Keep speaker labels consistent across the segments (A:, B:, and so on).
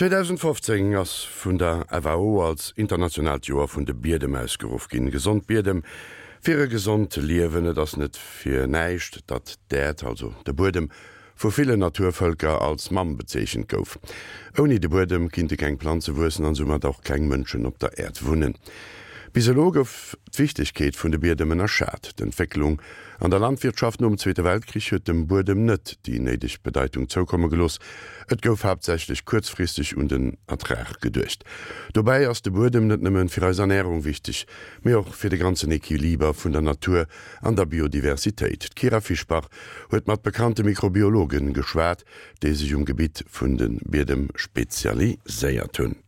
A: 2015 ass vun der FAO als internationaalt Joer vun de Biedem ausgeruff ginn. Gesond Biedem fir e gesond Liewen. Et ass net fir näischt, datt d'Äerd, also de Buedem, vu villen Naturvëlker als Mamm bezeechent gouf. Ouni de Buedem kinnte keng Planze wuessen an soumat och keng Mënschen op der Äerd wunnen. Bis elo gouf d'Wichtegkeet vun de Biedem ënnerschat. D'Entwécklung an der Landwirtschaft nom Zweete Weltkrich huet dem Buedem net déi néideg Bedeitung zoukomme gelooss. Et gouf haaptsächlech kuerzfristeg un den Ertrag geduecht. Dobäi ass de Buedem net nëmme fir eis Ernärung wichteg, mee och fir de ganzen Equiliber vun der Natur an der Biodiversitéit. D'Kyra Fischbach huet mat bekannte Mikrobiologen geschwat, déi sech um Gebitt vun de Biedem spezialiséiert hunn.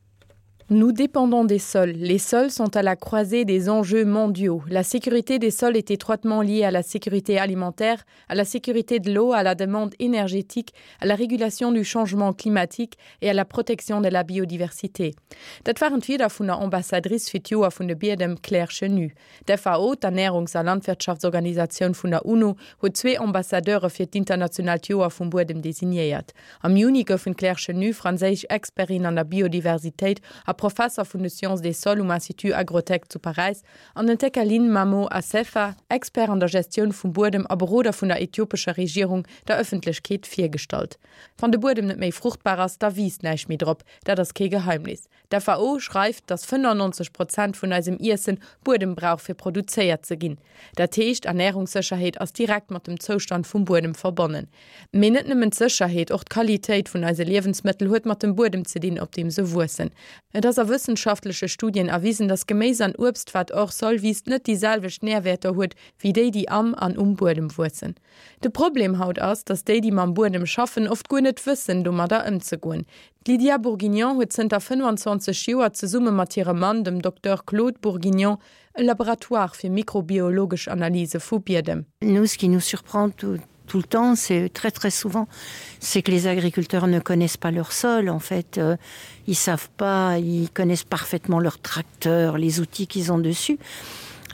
B: Nous dépendons des sols. Les sols sont à la croisée des enjeux mondiaux. La sécurité des sols est étroitement liée à la sécurité alimentaire, à la sécurité de l'eau, à la demande énergétique, à la régulation du changement climatique et à la protection de la biodiversité. Dat waren d'Wierder vun der Ambassadrice fir d'Joer vun de Biedem, Claire Chenu. D'FAO, d'Ernärungs a Landwirtschaftsorganisatioun vun der UNO, huet zwee Ambassadeure fir d'internationaalt Joer vum Buedem designéiert. Am Juni goufen d'Claire Chenu, franséisch Expertin an der Biodiversitéit a Professer vun de Sciences des sols um Institut Agrotec zu Paräis, an den Tekalign Mamo Assefa, Expert an der Gestioun vum Buedem a Beroder vun der ethiopescher Regierung, der Ëffentlechkeet virgestallt. Wann de Buedem net méi fruchtbar ass, da wiisst näischt méi drop. Dat ass kee Geheimnis. D'FAO schreift, datt 95 Prozent vun eisem Iessen Buedem brauch fir produzéiert ze ginn. Dat heescht, Ernärungssécherheet ass direkt mat dem Zoustand vum Buedem verbonnen. Mee net nëmmen d'Sécherheet, och d'Qualitéit vun eise Liewensmëttel huet mat dem Buedem ze dinn, op deem se wuessen. Et ass a wëssenschaftleche Studien erwisen, datt Geméis an Uebst, wat hors sol wiisst, net déi selwecht Närwäerter huet wéi déi, déi am an um Buedem wuessen. De Problem haut ass, datt déi, déi mam Buedem schaffen, oft guer net wëssen, domadder ëmzegoen. D'Lydia Bourguignon huet zënter 25 Joer zesumme mat hirem Mann, dem Docteur Claude Bourguignon, e Laboratoire fir mikrobiologesch Analyse vu Biedem.
C: Nous, ce qui nous surprend tout, tout le temps, c'est très très souvent, c'est que les agriculteurs ne connaissent pas leur sol en fait euh, ils savent pas, ils connaissent parfaitement leur tracteur, les outils qu'ils ont dessus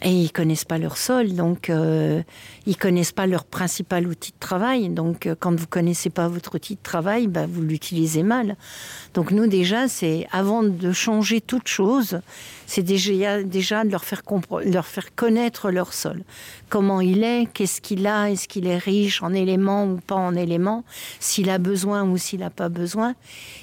C: et ils connaissent pas leur sol donc euh, ils connaissent pas leur principal outil de travail donc euh, quand vous connaissez pas votre outil de travail bah, vous l'utilisez mal donc nous déjà c'est avant de changer toute chose c'est déjà déjà de leur faire leur faire connaître leur sol comment il est qu'est ce qu'il a est ce qu'il est riche en éléments ou pas en éléments s'il a besoin ou s'il a pas besoin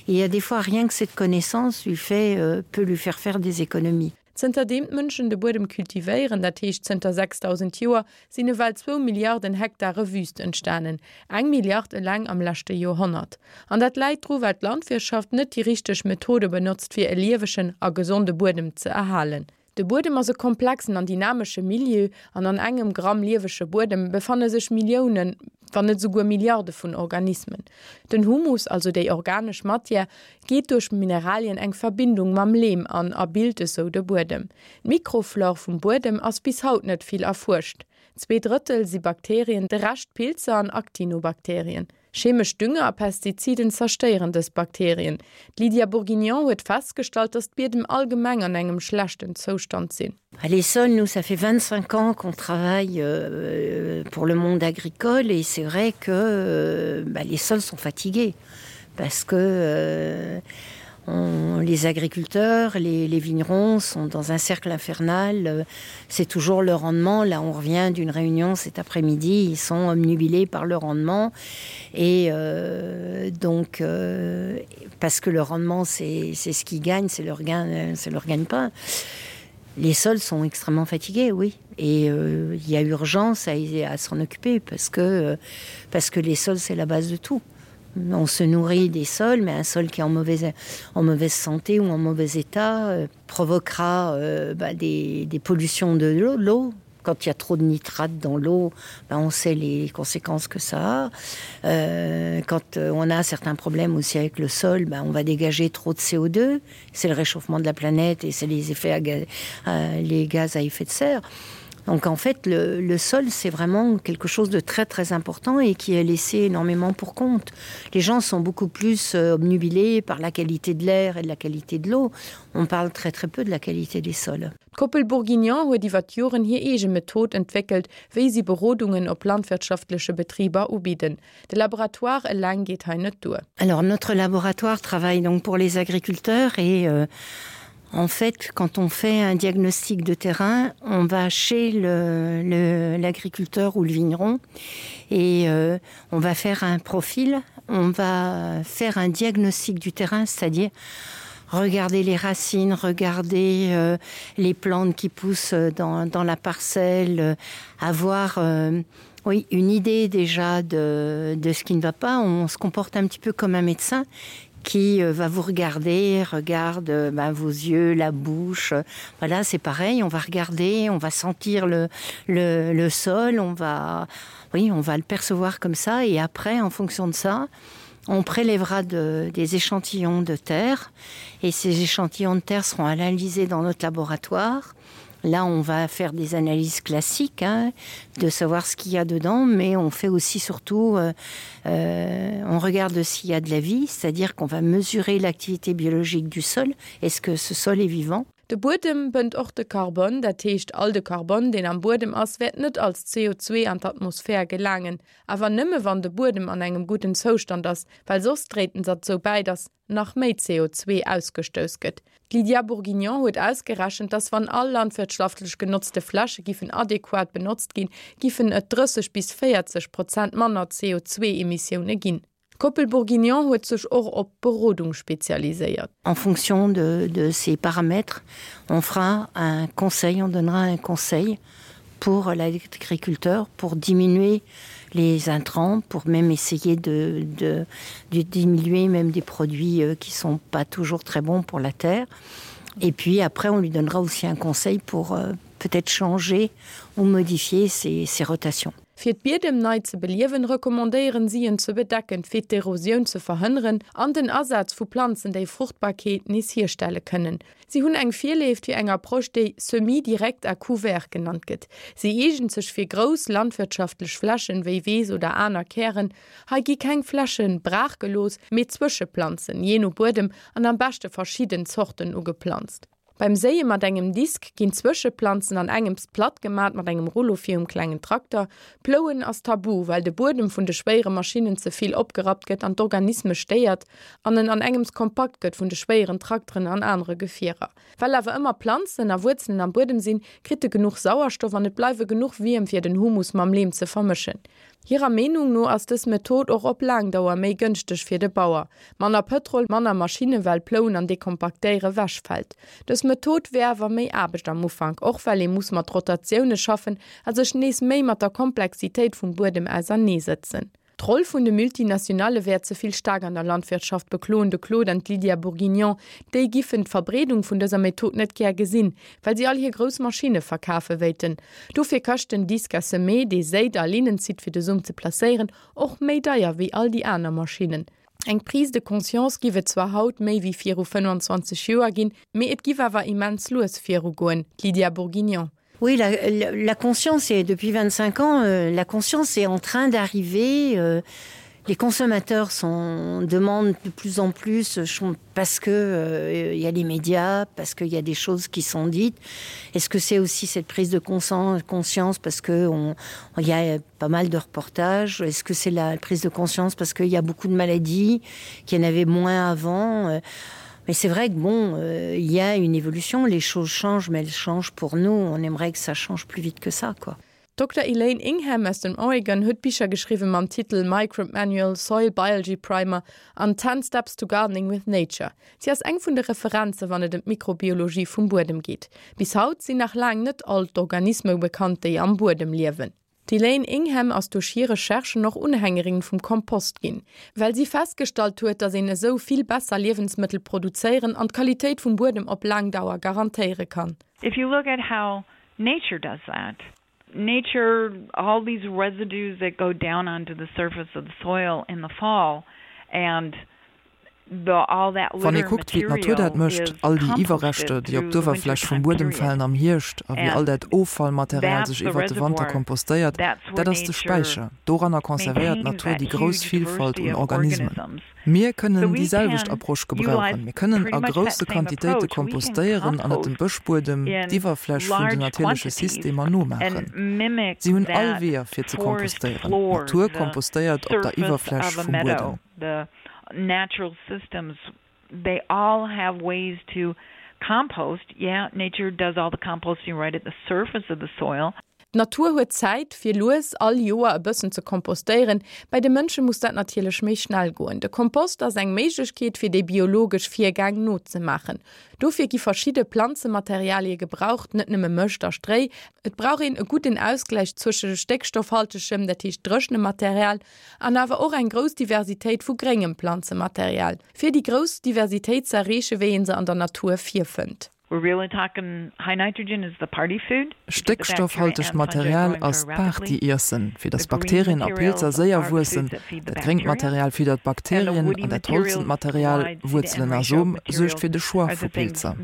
C: et il y a des fois rien que cette connaissance lui fait euh, peut lui faire faire des économies
B: Zënterdeem d'Mënschen de Buedem kultivéieren, dat heescht zënter 6.000 Joer, sinn ewell zwou Milliarden Hektare Wüüst entstanen, eng Milliard eleng am leschte Joerhonnert. An dat läit dru well d'Landwirtschaft net déi richteg Methode benotzt fir e liewegen a gesonde Buedem ze erhalen. De Buedem ass e komplexen an dynamesche Milieu an an engem Gramm liewege Buedem befanne sech Milliounen, wann net esouguer Milliarde vun Organismen. Den Humus, also déi organesch Matière, geet duerch Mineralien eng Verbindung mam Leem an a bilt esou de Buedem. D'Mikroflore vum Buedem ass bis haut net vill erfuerscht. Zweedrëttel si Bakterien, de Rescht Pilzer an Actinobakterien. Chemesch Dünger a Pestiziden zerstéieren dës Bakterien. D'Lydia Bourguignon huet festgestallt, datt d'Biedem allgemeng an engem schlechten Zoustand sinn.
C: Les sols, nous, ça fait 25 ans qu'on travaille euh, pour le monde agricole et c'est vrai que euh, bah, les sols sont fatigués parce que euh, on, les agriculteurs, les, les vignerons sont dans un cercle infernal, euh, c'est toujours le rendement. Là, on revient d'une réunion cet après-midi, ils sont omnubilés par le rendement et euh, donc euh, parce que le rendement c'est ce qu'ils gagnent, c'est leur gain, c'est leur gagne-pain. Les sols sont extrêmement fatigués, oui. Et euh, il y a urgence à, à s'en occuper parce que, euh, parce que les sols, c'est la base de tout. On se nourrit des sols, mais un sol qui est en mauvaise, en mauvaise santé ou en mauvais état euh, provoquera euh, bah, des, des pollutions de l'eau. Quand il y a trop de nitrates dans l'eau, ben on sait les conséquences que ça a. Euh, quand euh, on a certains problèmes aussi avec le sol, ben on va dégager trop de CO2. C'est le réchauffement de la planète et c'est les effets à gaz, euh, les gaz à effet de serre. Donc en fait le, le sol c'est vraiment quelque chose de très très important et qui est laissé énormément pour compte. Les gens sont beaucoup plus euh, obnubilés par la qualité de l'air et de la qualité de l'eau. On parle très très peu de la qualité des sols.
B: D'Koppel Bourguignon huet iwwer d'Joren hir eege Method entwéckelt, wéi si Berodungen op landwirtschaftleche Betriber ubidden. De Laboratoire eleng geet hei net duer.
C: Alors notre laboratoire travaille donc pour les agriculteurs et euh, en fait quand on fait un diagnostic de terrain, on va chez l'agriculteur ou le vigneron et euh, on va faire un profil, on va faire un diagnostic du terrain, c'est-à-dire regarder les racines, regarder euh, les plantes qui poussent dans, dans la parcelle, euh, avoir euh, oui, une idée déjà de, de ce qui ne va pas. On se comporte un petit peu comme un médecin qui euh, va vous regarder, regarde euh, ben, vos yeux, la bouche. Voilà, c'est pareil, on va regarder, on va sentir le, le, le sol, on va, oui, on va le percevoir comme ça et après, en fonction de ça, on prélèvera de, des échantillons de terre et ces échantillons de terre seront analysés dans notre laboratoire. Là, on va faire des analyses classiques hein, de savoir ce qu'il y a dedans, mais on fait aussi surtout euh, euh, on regarde s'il y a de la vie, c'est-à-dire qu'on va mesurer l'activité biologique du sol. Est-ce que ce sol est vivant?
B: De Buedem bënnt och de Karbon, dat heescht all de Karbon, deen am Buedem ass, wäert net als CO2 an d'Atmosphär gelaangen, awer nëmme wann de Buedem an engem gudden Zoustand ass, well soss dréit en derzou bäi, datt nach méi CO2 ausgestouss gëtt. D'Lydia Bourguignon huet ausgerechent, datt wann all landwirtschlaftlech genotzte Fläche giffen adequat benotzt ginn, giffen et 30 bis 40 Prozent manner CO2-Emissioune ginn. D'Koppel Bourguignon huet sech och op Berodung spezialiséiert.
C: En fonction de, de ces paramètres, on fera un conseil, on donnera un conseil pour l'agriculteur pour diminuer les intrants, pour même essayer de, de, de diminuer même des produits euh, qui sont pas toujours très bons pour la terre. Et puis après, on lui donnera aussi un conseil pour euh, peut-être changer ou modifier ses, ses rotations.
B: Fir d'Biedem nei ze beliewen, recommandéieren si en ze bedecken, fir d'Erosioun ze verhënneren an den Asaz vu Planzen, déi Fruchtbarkeet nees hierstelle kënnen. Si hunn eng Virléift fir eng Approche, déi Semis direct à couvert genannt gëtt. Si eegent sech fir grouss landwirtschaftlech Flächen, wéi Weess oder aner Kären. Hei gi keng Fläche braach gelooss, mee Zwëscheplanzen, jee no Buedem an am beschte verschidden Zorten ugeplanzt. Beim Séie mat engem Disk ginn d'Zwëscheplanzen an engems platt gemat mat engem Rullo virum klengen Trakter. Plouen ass tabu, well de Buedem vun de schwéiere Maschinnen ze vill opgerappt gëtt an d'Organisme stéiert an en an engems kompakt gëtt vun de schwéieren Trakteren an anere Gefierer. Well awer ëmmer Planzen a Wuerzelen am Buedem sinn, kritt e genuch Sauerstoff an et bleiwe genuch Wierm fir den Humus mam Leem ze vermëschen. Hirer Meenung no ass dës Method och op laang Dauer méi gënschteg fir de Bauer. Manner Pëtrol, manner Maschinne well Plouen an Dekompaktéiere wechfält. Dës Method wär awer méi Aarbecht am Ufank, och well ee muss mat Rotatioune schaffen a sech nees méi mat der Komplexitéit vum Buedem ausernee sëtzen. D'Roll vun de Multinationale wär ze vill staark an der Landwirtschaft, bekloen de Claude an d'Lydia Bourguignon. Déi giffen d'Verbreedung vun dëser Method net gär gesinn, well si all hir grouss Maschinne verkafe wéilten. Dofir kascht den Disque à semer, dee séit a Linnen zitt fir de Som ze placéieren, och méi deier wéi all déi aner Maschinnen. Eng Prise de conscience giff et zwar haut méi wéi viru 25 Joer ginn, mee et giff awer immens lues virugoen. D'Lydia Bourguignon.
C: Oui, la, la, la conscience est depuis 25 ans, euh, la conscience est en train d'arriver. Euh, les consommateurs sont, demandent de plus en plus parce que euh, y a les médias, parce qu'il y a des choses qui sont dites. Est-ce que c'est aussi cette prise de conscience parce que on, on y a pas mal de reportages Est-ce que c'est la prise de conscience parce qu'il y a beaucoup de maladies qu'il y en avait moins avant euh, Mais c'est vrai que bon, euh, il y a une évolution, les choses changent, mais elles changent pour nous. On aimerait que ça change plus vite que ça quoi.
B: Dr. Elaine Ingham aus dem Oregon huet Bicher geschriwwen mam Titel Microbe Manual, Soil Biology Primer an Ten Steps to Gardening with Nature. Si ass eng vun de Referenze wann et ëm d'Mikrobiologie vum Buedem geet. Bis haut sinn nach laang net all d'Organisme bekannt, déi am Buedem liewen. D'Elaine Ingham ass duerch hir Recherchen och Unhängerin vum Kompost ginn, well si festgestallt huet, datt een esou vill besser Liewensmëttel produzéieren an d'Qualitéit vum Buedem op laang Dauer garantéiere kann.
D: If you look at how nature does that, nature, all these residues that go down onto the surface of the soil in the fall and.
E: Wann ee kuckt, wéi d'Natur dat mécht, all déi Iwwerreschter, déi op d'Uewerfläch vum Buedem falen am Hierscht a wéi all dat Offallmaterial sech iwwert de Wanter kompostéiert, dat ass de Späicher. Doranner conservéiert d'Natur déi grouss Villfalt un Organismen. Mir kënnen déi selwecht Approche gebrauchen. Mir kënnen a grousse Quantitéite kompostéieren an et dem Bëschbuedem, d'Iwwerfläch vun den natierleche Systemer, nomaachen. Si hunn all Weeër fir ze kompostéieren. D'Natur kompostéiert op der Iwwerfläch vum Buedem.
D: The natural systems they all have ways to compost. Yeah, nature does all the composting right at the surface of the soil.
B: D'Natur huet Zäit, fir lues all Joer e bëssen ze kompostéieren. Bei de Mënsche muss dat natierlech méi schnell goen. De Kompost ass eng Méiglechkeet, fir déi biologesch Virgäng nozemaachen. Dofir gi verschidde Planzematerialie gebraucht, net nëmme Mëscht a Stréi. Et brauch een e gudden Ausgläich zwësche stéckstoffhaltegem, dat heescht dréchenem Material, An awer och eng grouss Diversitéit vu gréngem Planzematerial, fir déi grouss Diversitéit ze erreechen, wéi een se an der Natur virfënnt.
E: Stéckstoffhaltegt Material ass d'Party-Iessen, fir datt Bakterien a Pilzer séier wuessen. Dat gréngt Material fiddert d'Bakterien an dat holzent Material, Wuerzelen a Som, suergt fir de Choix vu Pilzer.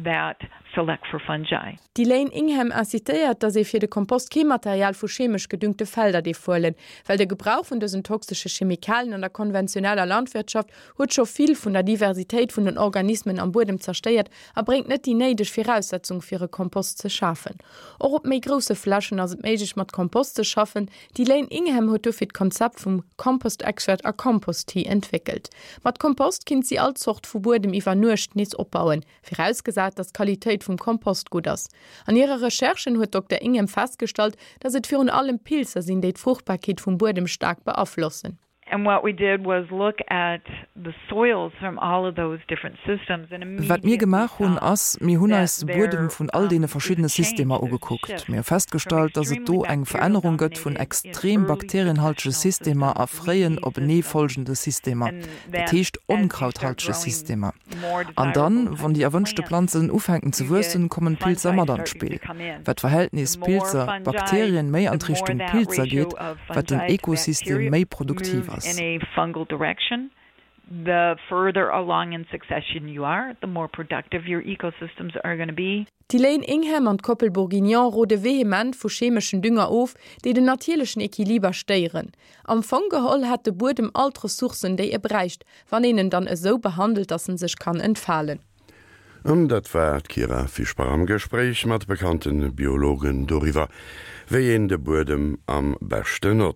D: Select for fungi.
B: D'Elaine Ingham incitéiert, datt ee fir de Kompost kee Material vu chemesch gedüngte Felder dierf huelen, well de Gebrauch vun dësen toxesche Chemikalien an der konventioneller Landwirtschaft huet scho vill vun der Diversitéit vun den Organismen am Buedem zerstéiert a bréngt net déi néideg Viraussetzung fir e Kompost ze schafen. Och op méi grousse Flächen ass et méiglech mat Kompost ze schaffen. D'Elaine Ingham huet dofir d'Konzept vum Compost Extract a Compost Tea entwéckelt. Mat Kompost kinnt si all Zort vu Buedem iwwer Nuecht nees opbauen. Virausgesat, datt d'Qualitéit vum Kompost gutt ass. An hire Recherchen huet d'Dokter Ingham festgestallt, datt et virun allem Pilzer sinn, déi d'Fruchtbarkeet vum Buedem staark beaflossen.
D: And what we did was look at the soils from all of those different systems and
E: Wat mir gemaach hunn, ass, mir hunn eis de Buedem vun all deene verschiddene Systemer ugekuckt. Mir hu festgestallt, datt et do eng Verännerung gëtt vun extrem bakterienhaltege Systemer a fréien openeefolgende Systemer, dat heescht onkrauthaltege Systemer. An dann, wann déi erwënschte Planzen ufänken ze wuessen, kommen d'Pilzer mat an d'Spill. Wat d'Verhältnis Pilzer, Bakterien méi an d'Richtung Pilzer geet, wat den Ekosystem méi produktiv ass.
B: D'Elaine Ingham an d'Koppel Bourguignon rode vehement vu chemeschen Dünger of, déi den natierlechen Equiliber stéieren. Am Fong geholl hätt de Buedem all d'Ressourcen, déi e bräicht, wann een en dann esou behandelt, dass en sech kann entfalen.
A: An dat war d'Kyra Fischbach am Gespréich mat bekannte Biologen doriwwer, wéi een de Buedem am beschten notzt.